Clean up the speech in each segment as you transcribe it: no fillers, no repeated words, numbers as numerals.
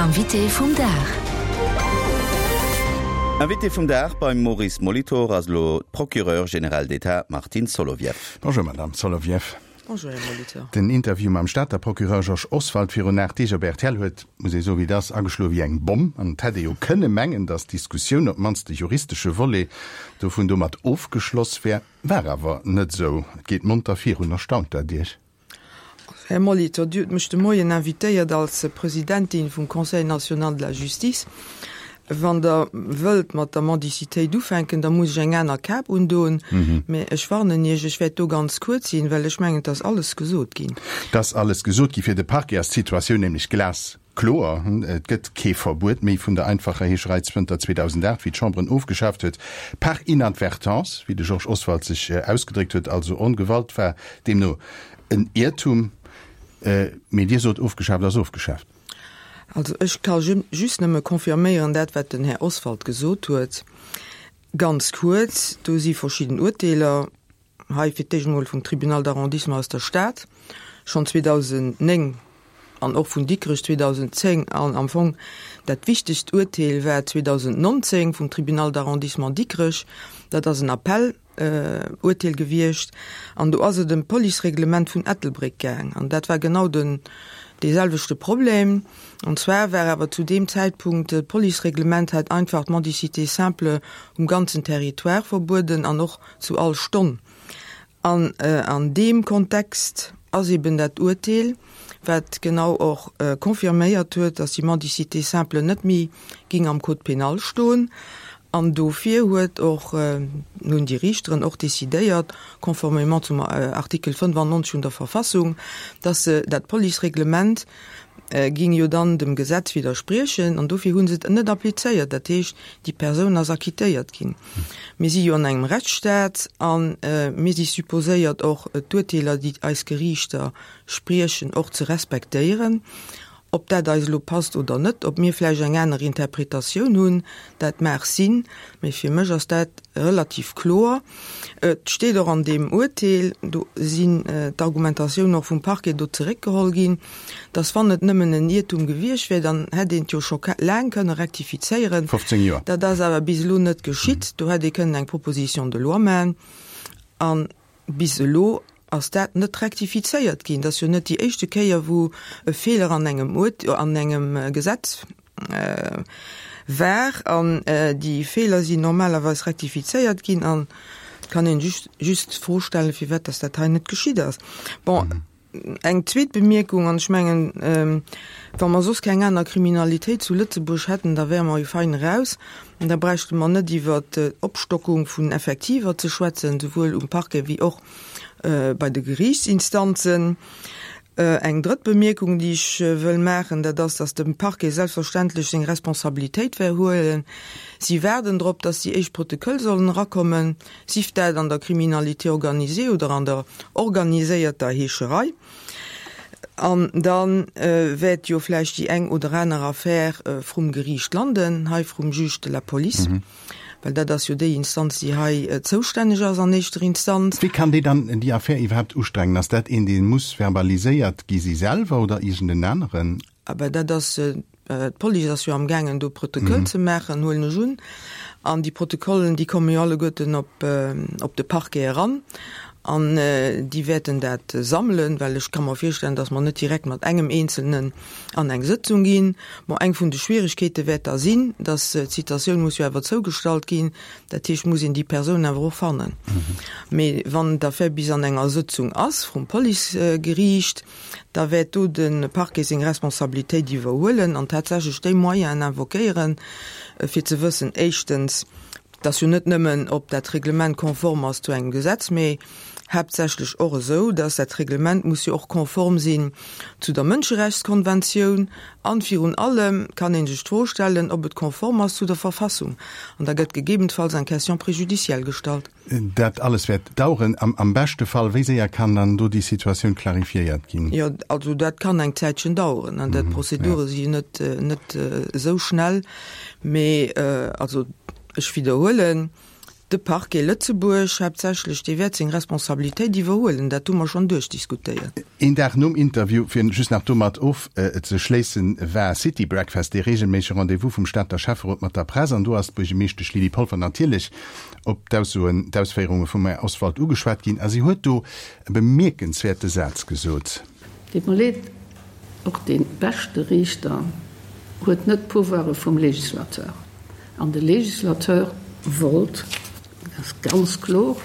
Invité vum Dag. Invité vum Dag beim Maurice Molitor ass elo d'Procureure générale d'État Martine Solovieff. Bonjour Madame Solovieff. Bonjour Här Molitor. Den Interview mam Stater Procureur Georges Oswald virun 8 Deeg op rtl huet, muss ee soen wéi et ass, ageschloe wéi eng Bomm. An et hätt ee jo kënne mengen, datt d'Diskussioun, op d'mannst de juristesche Volet dovun, domat ofgeschloss wär. War awer net esou. Et geet monter virun. Erstaunt dat Iech? Här Molitor, Dir hutt mech de Moien invitéiert als Presidentin vum Conseil national de la justice. Wann Der wëllt mat der Mendicitéit ufänken, da muss ech eng aner Kap undoen. Mä ech warnen Iech, ech wäert do ganz kuerz sinn, well ech mengen, et ass alles gesot ginn. Et ass alles gesot ginn. Fir de Parquet ass d'Situatioun nämlech glaskloer. Et gëtt kee Verbuet méi vun der einfacher Heescherei zënter 2008, wéi d'Chamber en ofgeschaaft huet, par inadvertance, wéi de Georges Oswald sech ausgedréckt huet, also ongewallt, war deemno en Iertum. Mee Dir sot, ofgeschaaft ass ofgeschaaft. Also ech ka just nëmme confirméieren dat, wat den Här Oswald gesot huet. Ganz kuerz, do si verschidden Urteeler, hei fir d'éischt emol vum Tribunal d'arrondissement aus der Stad, schonn 2009, an och vun Dikrech 2010, an am Fong dat wichtegst Urteel war 2019 vum Tribunal d'arrondissement Dikrech, dat ass en Appell, Urteel gewiescht an do ass et ëm d'Policereglement vun Ettelbréck gaang an dat war genau den dee selwechte Problem. An zwar war awer zu deem Zäitpunkt d'Policereglement hat einfach d'Mendicité simple um ganzen Territoire verbueden an och zu all Stonn. An an deem Kontext ass eben dat Urteel, wat genau och confirméiert huet, dass déi Mendicité simple net méi ging am Code pénal stoen. An dofir huet och, hunn déi Riichteren och decidéiert, conformément zum Artikel 95 vun der Verfassung, dass se dat Policereglement ging jo dann dem Gesetz widderspriechen, an dofir hu se et net applizéiert. Dat heescht, déi Persoun ass acquittéiert ginn. Mir si jo an engem Rechtsstaat a mir si supposéiert och d'Urteeler, déi eis Geriichter spriechen, och ze respektéieren. Ob dat eis elo passt oder net, ob mir vläicht eng aner Interpretatioun hunn, dat mag sinn, mee fir mech ass dat relativ kloer. Et steet och an deem Urteel, do sinn d'Argumentatioune och vum Parquet do zeréckgeholl ginn, dass wann et nëmmen en Iertum gewiescht wär, dann hätt een et jo scho laang kënne rektifizéieren. 15 Joer. Dat ass awer bis elo net geschitt. Do hätt ee kënnen eng Proposition de loi maachen. An Bis elo ass dat net rektifizéiert ginn. Dat ass jo net déi éischte Kéier, wou e Feeler an engem Urt-, an engem Gesetz war. An déi Feeler sinn normalerweis rektifizéiert ginn. An et kann een just, just d'Fro stellen, firwat dass dat hei net geschitt ass. Bon. Eng zweet Bemierkung, an ech mengen, wa mer soss keng aner Kriminalitéit zu Lëtzebuerg hätten, da wäre mer jo fein eraus. An da bräichte mer net iwwert d'Opstockung vun Effektiver ze schwätzen, souwuel um Parquet wéi och bei de Geriichtsinstanzen. Eng drëtt Bemierkung, déi ech wëll maachen, dat ass, dass de Parquet selbstverständlech seng Responsabilitéit wäert huelen. Si waarden drop, dass déi éischt Protoköll sollen erakommen. Sief dat an der Criminalité organisée oder an der organiséierter Heescherei. An da wäert jo vläicht déi eng oder aner Affär vrum Geriicht landen, hei vrum Juge de la police, well dat ass jo déi Instanz, déi hei zoustänneg ass an éischter Instanz. Wie kann déi dann, déi Affär iwwerhaapt ustrengen? Ass dat een, dee muss verbaliséiert gi si selwer oder iergend en aneren? Ah ben dat ass, d'Police ass jo am gaangen do Protokoll ze maachen, huelen ech un. An déi Protokollen, déi komme jo alleguerten op op de Parquet eran an déi wäerten dat sammelen, well ech ka mer virstellen, datt mer net direkt mat engem Eenzelnen an eng Sëtzung ginn. Bon, eng vun de Schwieregkeete wäert da sinn, datt d'Citatioun muss jo awer zougestallt ginn, dat heescht, muss een déi Persoun awer och fannen. Mee wann d'Affär bis an enger Sëtzung ass vrum Policegeriicht, da wäert do de Parquet seng Responsabilitéit iwwerhuelen an tatsächlech déi Moyenen invoquéieren, fir ze wëssen, éischtens, dass jo net nëmmen, ob dat Reglement konform ass zu engem Gesetz, mee haaptsächlech och esou, dass dat Reglement muss jo och konform sinn zu der Mënscherechtskonventioun an virun allem kann ee sech d'Fro stellen, ob et konform ass zu der Verfassung. An da gëtt gegebenfalls eng Question préjudicielle gestallt. Dat alles wäert daueren. Am beschte Fall, wéi séier kann dann do déi Situatioun clarifiéiert ginn? Jo, also dat kann eng Zäitchen daueren. Dat d'Prozedure si jo net, net esou schnell. Mee also ech widderhuelen. De Parquet Lëtzebuerg haaptsächlech, dee wäert seng Responsabilitéit iwwerhuelen. Dat hu mer schonn duerchdiskutéiert. Een Dag nom Interview, fir just nach domat ofzeschléissen, war City Breakfast, dee reegelméissege Rendez-vous vum Stater Schäfferot mat der Press. An do ass d'Buergemeeschtesch Lydie Polfer natierlech op d'Aussoen, d'Ausféierunge vum Här Oswald ugeschwat ginn. A si huet do e bemierkenswäerte Saz gesot. Deet mer leed, och dee beschte Riichter huet net d'Pouvoire vum Législateur. An de Législateur wollt, dat ass ganz kloer,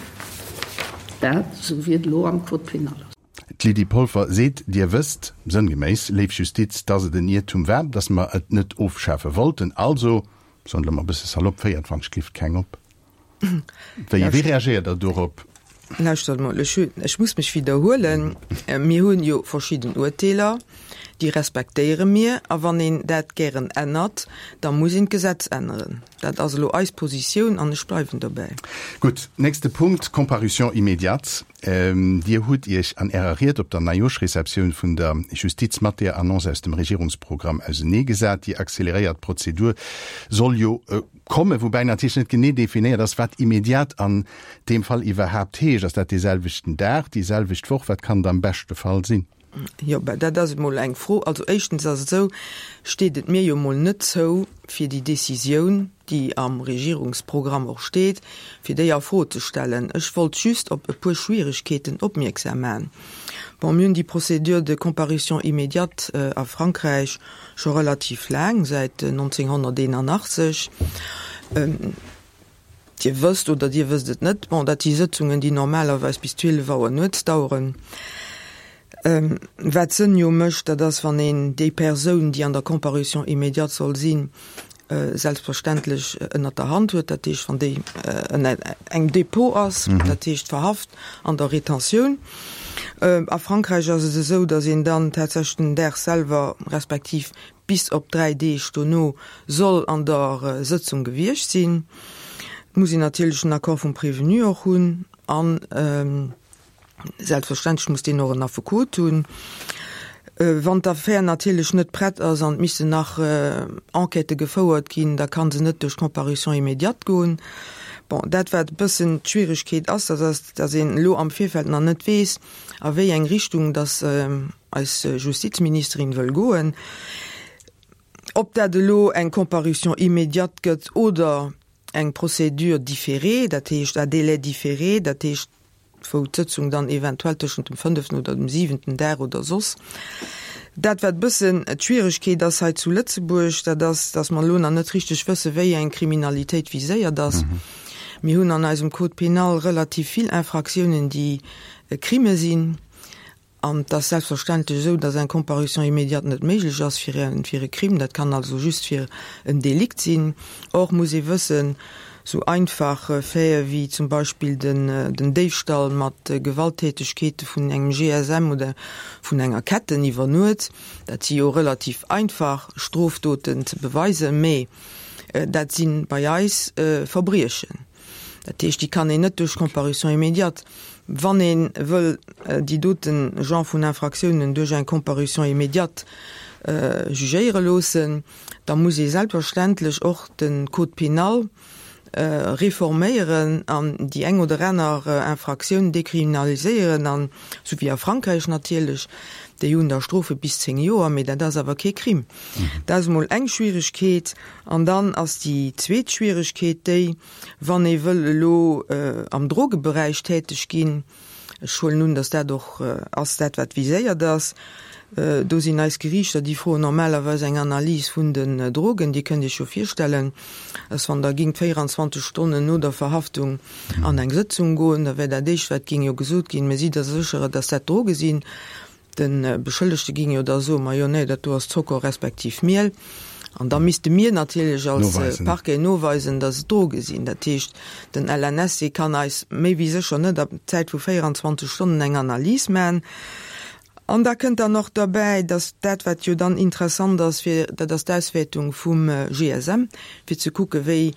dat, esou wéi et elo am Code pénal ass. D'Lydie Polfer seet, Dir wësst, sënngeméiss, léif Justiz, dass et en Iertum war, dass mer et net ofschafe wollten. Also, soen elo mol e bësse salopp, féiert wann ech glift keng op. Wéi wéi reagéiert Der dorop? Lauschtert mol, ech hu, ech muss mech widderhuelen, Mir hunn jo verschidden Urteeler, déi respektéiere mir, a wann een dat gären ännert, da muss een d'Gesetz änneren. Dat ass elo eis Positioun an ech bleiwen dobäi. Gutt, nächste Punkt, Comparution immédiate. Dir hutt Iech an Ärer Ried op der Neijoerschreceptioun vun der Justiz mat där Annonce aus dem Regierungsprogramm auseneegesat. Déi acceleréiert Prozedur soll jo Kommen, woubäi natierlech net genee definéiert ass, wat immediat an deem Fall iwwerhaapt heescht. Ass dat dee selwechten Dag, déi selwecht Woch? Wat kann et am beschte Fall sinn? Jo, ben dat ass emol eng Fro. Also éischtens ass et esou, steet et mir jo emol net zou, fir déi Décisioun, déi am Regierungsprogramm och steet, fir déi a Fro ze stellen. Ech wollt just op e puer Schwieregkeeten opmierksam maachen. Bon, mir hunn déi Procédure de comparution immédiate a Frankräich Scho relativ laang, säit 1981. Dir wësst oder Dir wësst et net, bon, dat si Sëtzungen, déi normalerweis bis 12 Auer nuets daueren. Wat Sënn jo mécht, dat ass, wann een déi Persoun, déi an der Comparution immédiate soll sinn, selbstverständlech ënnert der Hand huet, dat heescht, wann déi ënner engem Dépôt ass, dat heescht verhaft an der Retentioun. A Frankräich ass et esou, datt een dann tatsächlech den Dag selwer, respektiv bis op 3 Deeg dono soll an der Sëtzung gewiescht sinn. Et muss een natierlech den Accord vum Prévenu och hunn an Selbstverständlech muss deen och en Affekot hunn. Wann d'Affär natierlech net prett ass an et missten nach Enquêtë gefouert ginn, da ka se net duerch d'Comparution immédiate goen. Bon, dat wat e bëssen d'Schwieregkeet ass, dat ass, datt een elo am Virfeld nach net weess, a wéi eng Richtung datt eis Justizministerin wëll goen. Ob dat elo eng Comparution immédiate gëtt oder eng Procédure différée, dat heescht à délai différé, dat heescht, wou d'Sëtzung dann eventuell tëschent dem fënneften oder dem siwenten Dag oder soss. Dat, wat e bëssen d'Schwieregkeet ass hei zu Lëtzebuerg, dat ass, dass mer elo nach net richteg wëssen, wéi eng Kriminalitéit viséiert ass. Mir hunn an eisem Code pénal relativ vill Infractiounen, déi Crime sinn. An et ass selbstverständlech esou, dass eng Comparution immédiate net méiglech ass fir e, fir e Crime. Dat kann also just fir en Delikt sinn. Or muss ee wëssen, esou einfach Faite wéi zum Beispill den, den Déifstall mat Gewalttätegkeete vun engem GSM oder vun enger Ketten iwwer Nuet, dat si jo relativ einfach Strofdoten ze beweisen, mä dat si bei eis Verbriechen. Dat heescht, déi kann een net duerch Comparution immédiate. Wann ee wëll déi doten Genre vun Infractiounen duerch eng Comparution immédiate jugéiere loossen, da muss ee selbstverständlech och de Code pénal reforméieren an déi eng oder aner Infractioun dekriminaliséieren, an esou wéi a Frankräich natierlech, déi hunn da Strofe bis 10 Joer, mee dat ass awer kee Crime. Dat ass emol eng Schwieregkeet. An dann ass déi zweet Schwieregkeet déi, wann ee wëll elo am Drogeberäich täteg ginn, ech huelen un, datt dat och ass dat, wat viséiert ass, do sinn eis Geriichter, déi froen normalerweis eng Analys vun den Drogen. Dir kënnt Iech jo virstellen, datt wann Der gingt 24 Stonnen no der Verhaftung an eng Sëtzung goen, da wär dat éischt, wat géing jo gesot ginn, Mä sidd Der sécher, datt dat Droge sinn? De Beschëllegte ging jo da soen, Majo, nee, dat do ass Zocker respektiv Miel. An da misste mir natierlech als Parquet noweisen, datt et Droge sinn. Dat heescht, den LNSC kann eis méi wéi sécher net a Zäit vu 24 Stonnen eng Analys maachen. An da kënnt dann och derbäi, datt dat, wat jo dann interessant ass, fir, dat ass d'Auswäertung vum GSM, fir ze kucken, wéi.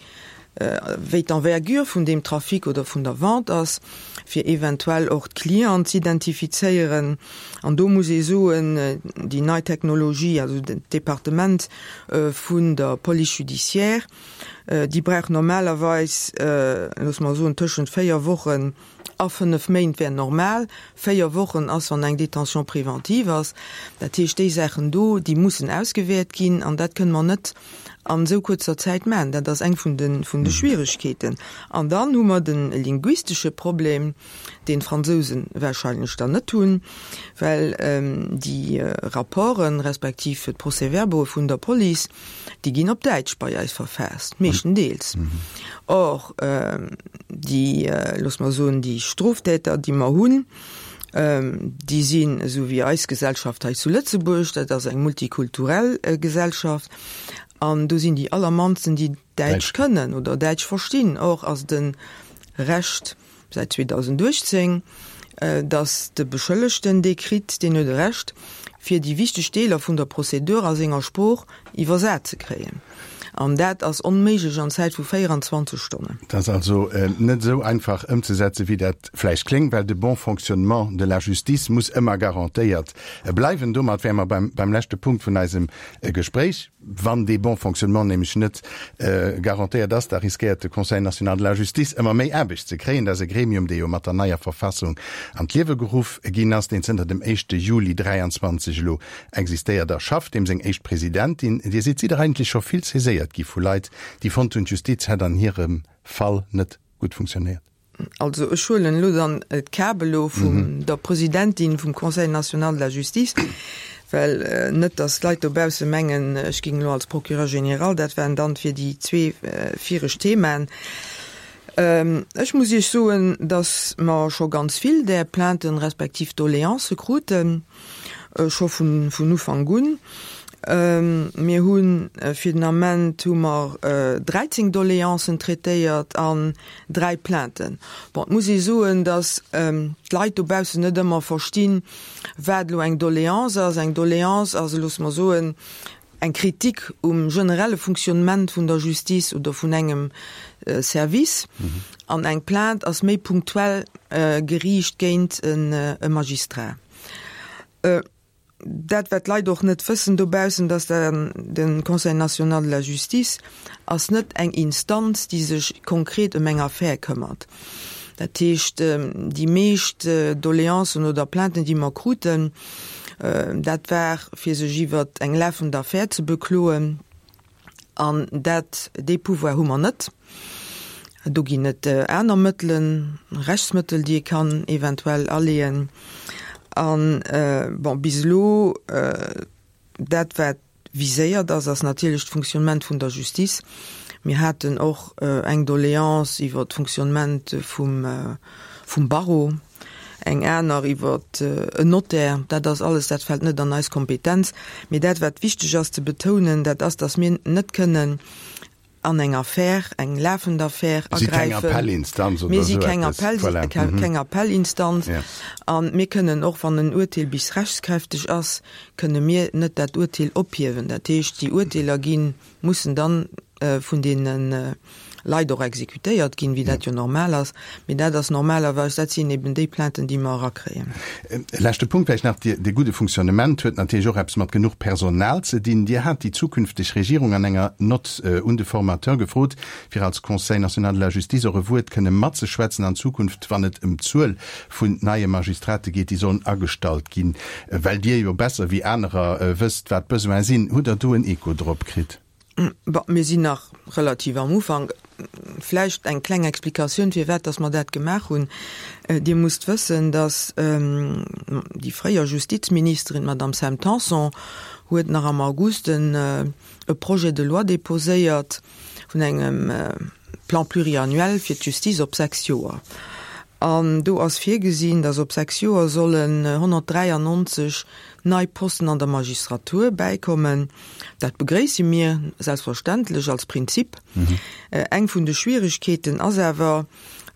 wéi d'Envergure vun deem Trafic oder vun der Vente ass, fir eventuell och d'Clienten z'identifizéieren. An do muss ee soen, déi nei Technologie, also d'Departement vun der Police judiciaire, déi brauch normalerweis, loosse mer soen, tëschent 4 Wochen a 5 Méint wär normal. 4 Wochen ass, wann eng Détention préventive ass. Dat heescht, déi Saachen do, déi mussen ausgewäert ginn an dat kënne mer net an esou kuerzer Zäit maachen. Dat ass eng vun de, vun de Schwieregkeeten. An dann hu mer de linguistesche Problem, deen d'Fransousen wahrscheinlech dann net hunn, well déi Rapporten, respektiv d'Procès-verbaue vun der Police, déi ginn op Däitsch bei eis verfaasst, meeschtendeels. Or, déi, loosse mer soen, déi Stroftäter, déi mer hunn, déi sinn esou wéi eis Gesellschaft hei zu Lëtzebuerg, dat ass eng multikulturell Gesellschaft, an do sinn déi allermannsten, déi Däitsch kënnen oder Däitsch verstinn. Or ass et e Recht säit 2018, datt de Beschëllegten dee kritt, deen huet e Recht, fir déi wichteg Deeler vun der Prozedur a senger Sprooch iwwersat ze kréien. An dat ass onméiglech an Zäit vu 24 Stonnen. Et ass also net esou einfach ëmzesetzen, wéi dat vläicht kléngt, well de bon fonctionnement de la justice muss ëmmer garantéiert bleiwen. Domat wäre mer beim leschte Punkt vun eisem Gespréich. Wann dee bon fonctionnement nämlech net garantéiert ass, da riskéiert de Conseil national de la justice ëmmer méi Aarbecht ze kréien. Dat ass e Gremium, dee jo mat der neier Verfassung an d'Liewe geruff ginn ass, deen zënter dem éischte Juli 23 elo existéiert a schafft, deem seng éischt Presidentin Dir sidd. Sidd Der eigentlech scho vill saiséiert gi vu Leit, déi fonnt hunn, d'Justiz hätt an hirem Fall net gutt funktionéiert? Also ech huelen elo dann d'Kap elo vun der Presidentin vum Conseil national de la justice, well net datt d'Leit dobausse mengen, ech géing elo als Procureur général, dat waren dann fir déi zwee viregt Themaen. Ech muss Iech soen, datt mer scho ganz vill där Plainten respektiv Doléancë kruten. scho vun Ufank un. Mir hu fir den Ament hu mer 13 Doléancen traitéiert an 3 Plainten. Bon, et muss ee soen, datt d'Leit dobaussen net ëmmer verstinn, wat elo eng Doléance ass. Eng Doléance ass, loosse mer soen, eng Kritik um generelle Fonctionnement vun der Justice oder vun engem Service. An eng Plainte ass méi punktuell geriicht géint e Magistrat. Dat, wat d'Leit och net wëssen dobaussen, dass de Conseil national de la justice ass net eng Instanz, déi sech konkret ëm eng Affär këmmert. Dat heescht, déi meescht Doleancen oder Plainten, déi mer kruten, dat war, fir sech iwwer eng lafend Affär ze bekloen. An dat, dee Pouvoir hu mer net. Do ginn et aner Mëttelen, Rechtsmëttel, déi ee kann eventuell aleeën. An, bon, bis elo, dat wat viséiert ass, ass natierlech d'Fonctionnement vun der Justice. Mir haten och eng Doléance iwwer d'Fonctionnement vum, vum Barreau. eng aner iwwer en Notaire, dat ass alles, dat fält net an eis Kompetenz. Mee dat, wat wichteg ass ze betounen, dat ass, datt mir net kënnen an eng Affär, eng lafend Affär agräifen. Mir si keng Appell, keng Appellinstanz. A mir kënnen och, wann en Urteel bis rechtskräfteg ass, kënne mir net dat Urteel ophiewen. Dat heescht, déi Urteeler ginn, mussen dann vun deene Leit och exekutéiert ginn, wéi dat jo normal ass. Mee dat ass normalerweis, dat sinn eben déi Plainten, déi mer erakréien. E leschte Punkt vläicht nach, Dee gudde Fonctionnement huet natierlech och eppes mat genuch Personal ze dinn. Dir hat déi zukünfteg Regierung an enger Nott un de Formateur gefrot, fir als Conseil national de la justice och e Wuert kënne matzeschwätzen an Zukunft, wann et ëm d'Zuel vun neie Magistrate geet, déi sollen agestallt ginn. Well Dir jo besser wéi anerer wësst, wat d'Besoine sinn, hutt Der do en Echo drop kritt? Bon, mir sinn nach relativ am Ufank. Vläicht eng kleng Explikatioun, firwat dass mer dat gemaach hunn. Dir musst wëssen, dass déi fréier Justizministerin, d'Madame Sam Tanson, huet nach am August en e Projet de loi déposéiert vun engem Plan pluriannuel fir d'Justiz op sechs Joer. An do ass virgesinn, dass op sechs Joer sollen 193 nei Posten an der Magistratur bäikommen. Dat begréisse mir selbstverständlech als Prinzip. Eng vun de Schwieregkeeten ass awer,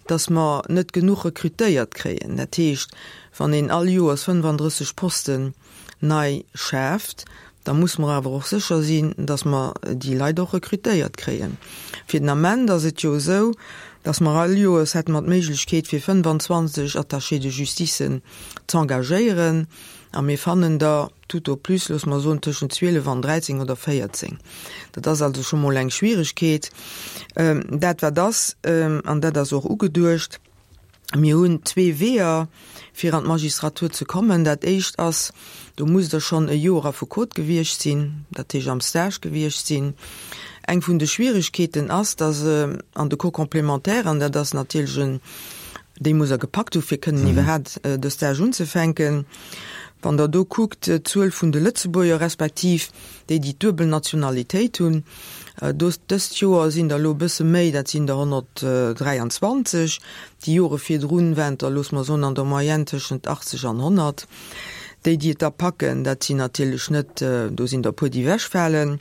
dass mer net genuch rekrutéiert kréien. Dat heescht, wann een all Joers 35 Posten nei schaaft, Da muss mer awer och sécher sinn, dass mer déi Leit och rekrutéiert kréien. Fir den Ament ass et jo esou, dass mer all Joers hätte mer d'Méiglechkeet fir 25 Attachés de justicen z'engagéieren a mir fannen der tout au plus, loosse mer soen, tëschent 12 an 13 oder 14. Dat ass also scho mol eng Schwieregkeet. Dat wat ass, an dat ass och ugeduecht, Mir hunn zwee Weeër, fir an d'Magistratur ze kommen. Dat éischt ass, do musst Der schonn e Joer Affekot gewiescht sinn, dat heescht am Stage gewiescht sinn. Eng vun de Schwieregkeeten ass, dass an de Cours complémentaire, an dat ass natierlech en, déi muss Der gepackt hu fir kënnen iwwerhaapt de Stage unzefänken, wann Der do kuckt, d'Zuel vun de Lëtzebuerger respektiv déi, déi d'duebel Nationalitéit hunn, Do, dëst Joer sinn der elo e bësse méi, dat sinn der 123. Déi Jore virdrun waren et der, loosse mer soen, an der Moyenne tëschent 80 an 100. Déi, déi et da packen, dat sinn natierlech net, do sinn der e puer, déi ewechfalen.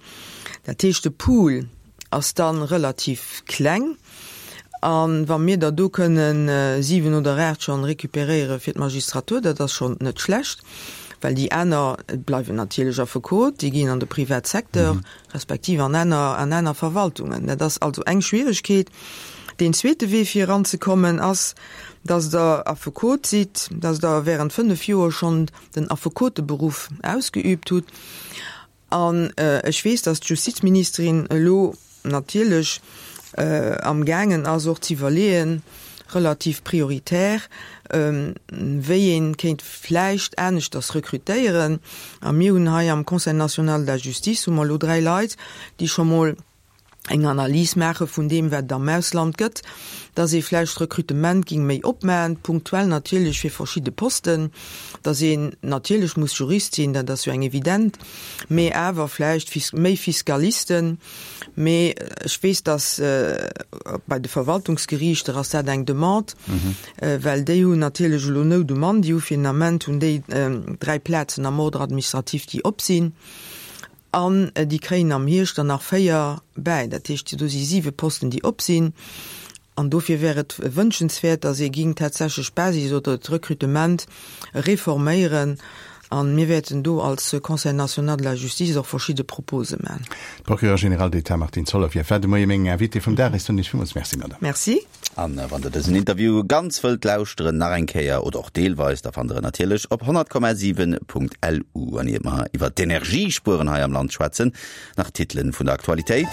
Dat heescht, de Pool ass da relativ kleng. A wa mir der do kënnen 7 oder 8 schonn récupéréiere fir d'Magistratur, dat ass schonn net schlecht, well déi aner bleiwen natierlech Affekot, déi ginn an de Privatsecteur respektiv an aner, an aner Verwaltungen. Dat ass also eng Schwieregkeet. Deen zweete Wee fir eranzekommen ass, dass Der Affekot sidd, dass Der während 5 Joer schonn den Affekoteberuff ausgeübt hutt. An ech weess, dass d'Justizministerin elo natierlech amgaangen ass och ze iwwerleeën, relativ prioritär, wéi ee kéint vläicht aneschters rekrutéieren. A mir hunn hei am Conseil national de la justice hu mer elo dräi Leit, déi scho mol eng Analys maache vun deem, wat et am Ausland gëtt, dass ee vläicht d'Rekrutement géing méi opmachen, punktuell natierlech fir verschidde Posten, dass een natierlech muss Jurist sinn, dat ass jo eng evident, mee awer vläicht méi Fiskalisten. Mee ech weess, dass bei de Verwaltungsgeriichter ass dat eng Demande, well déi hunn natierlech elo Nout um Mann. Déi hu fir den Ament hunn déi dräi Plazen am Ordre administratif, déi op sinn. An déi kréien am Hierscht der nach 4 bäi. Dat heescht, do si siwe Posten, déi op sinn. An dofir wär et wënschenswäert, datt ee géing tatsächlech d'Basis oder d'Rekrutement reforméieren. A mir wäerten do als Conseil national de la justice och verschidde Propose maachen. D'Procureure générale d'État Martine Solovieff war de Moie meng Invitée vum Dag. Ech soen Iech villmools Merci, Madame. Merci. An wann der dësen Interview ganz wëllt lauschteren, nach eng Kéier oder och deelweis, da fannt der en natierlech op 100,7.lu. An iert mer iwwert d'Energiespueren hei am Land schwätzen, nach d'Titelen vun der Aktualitéit.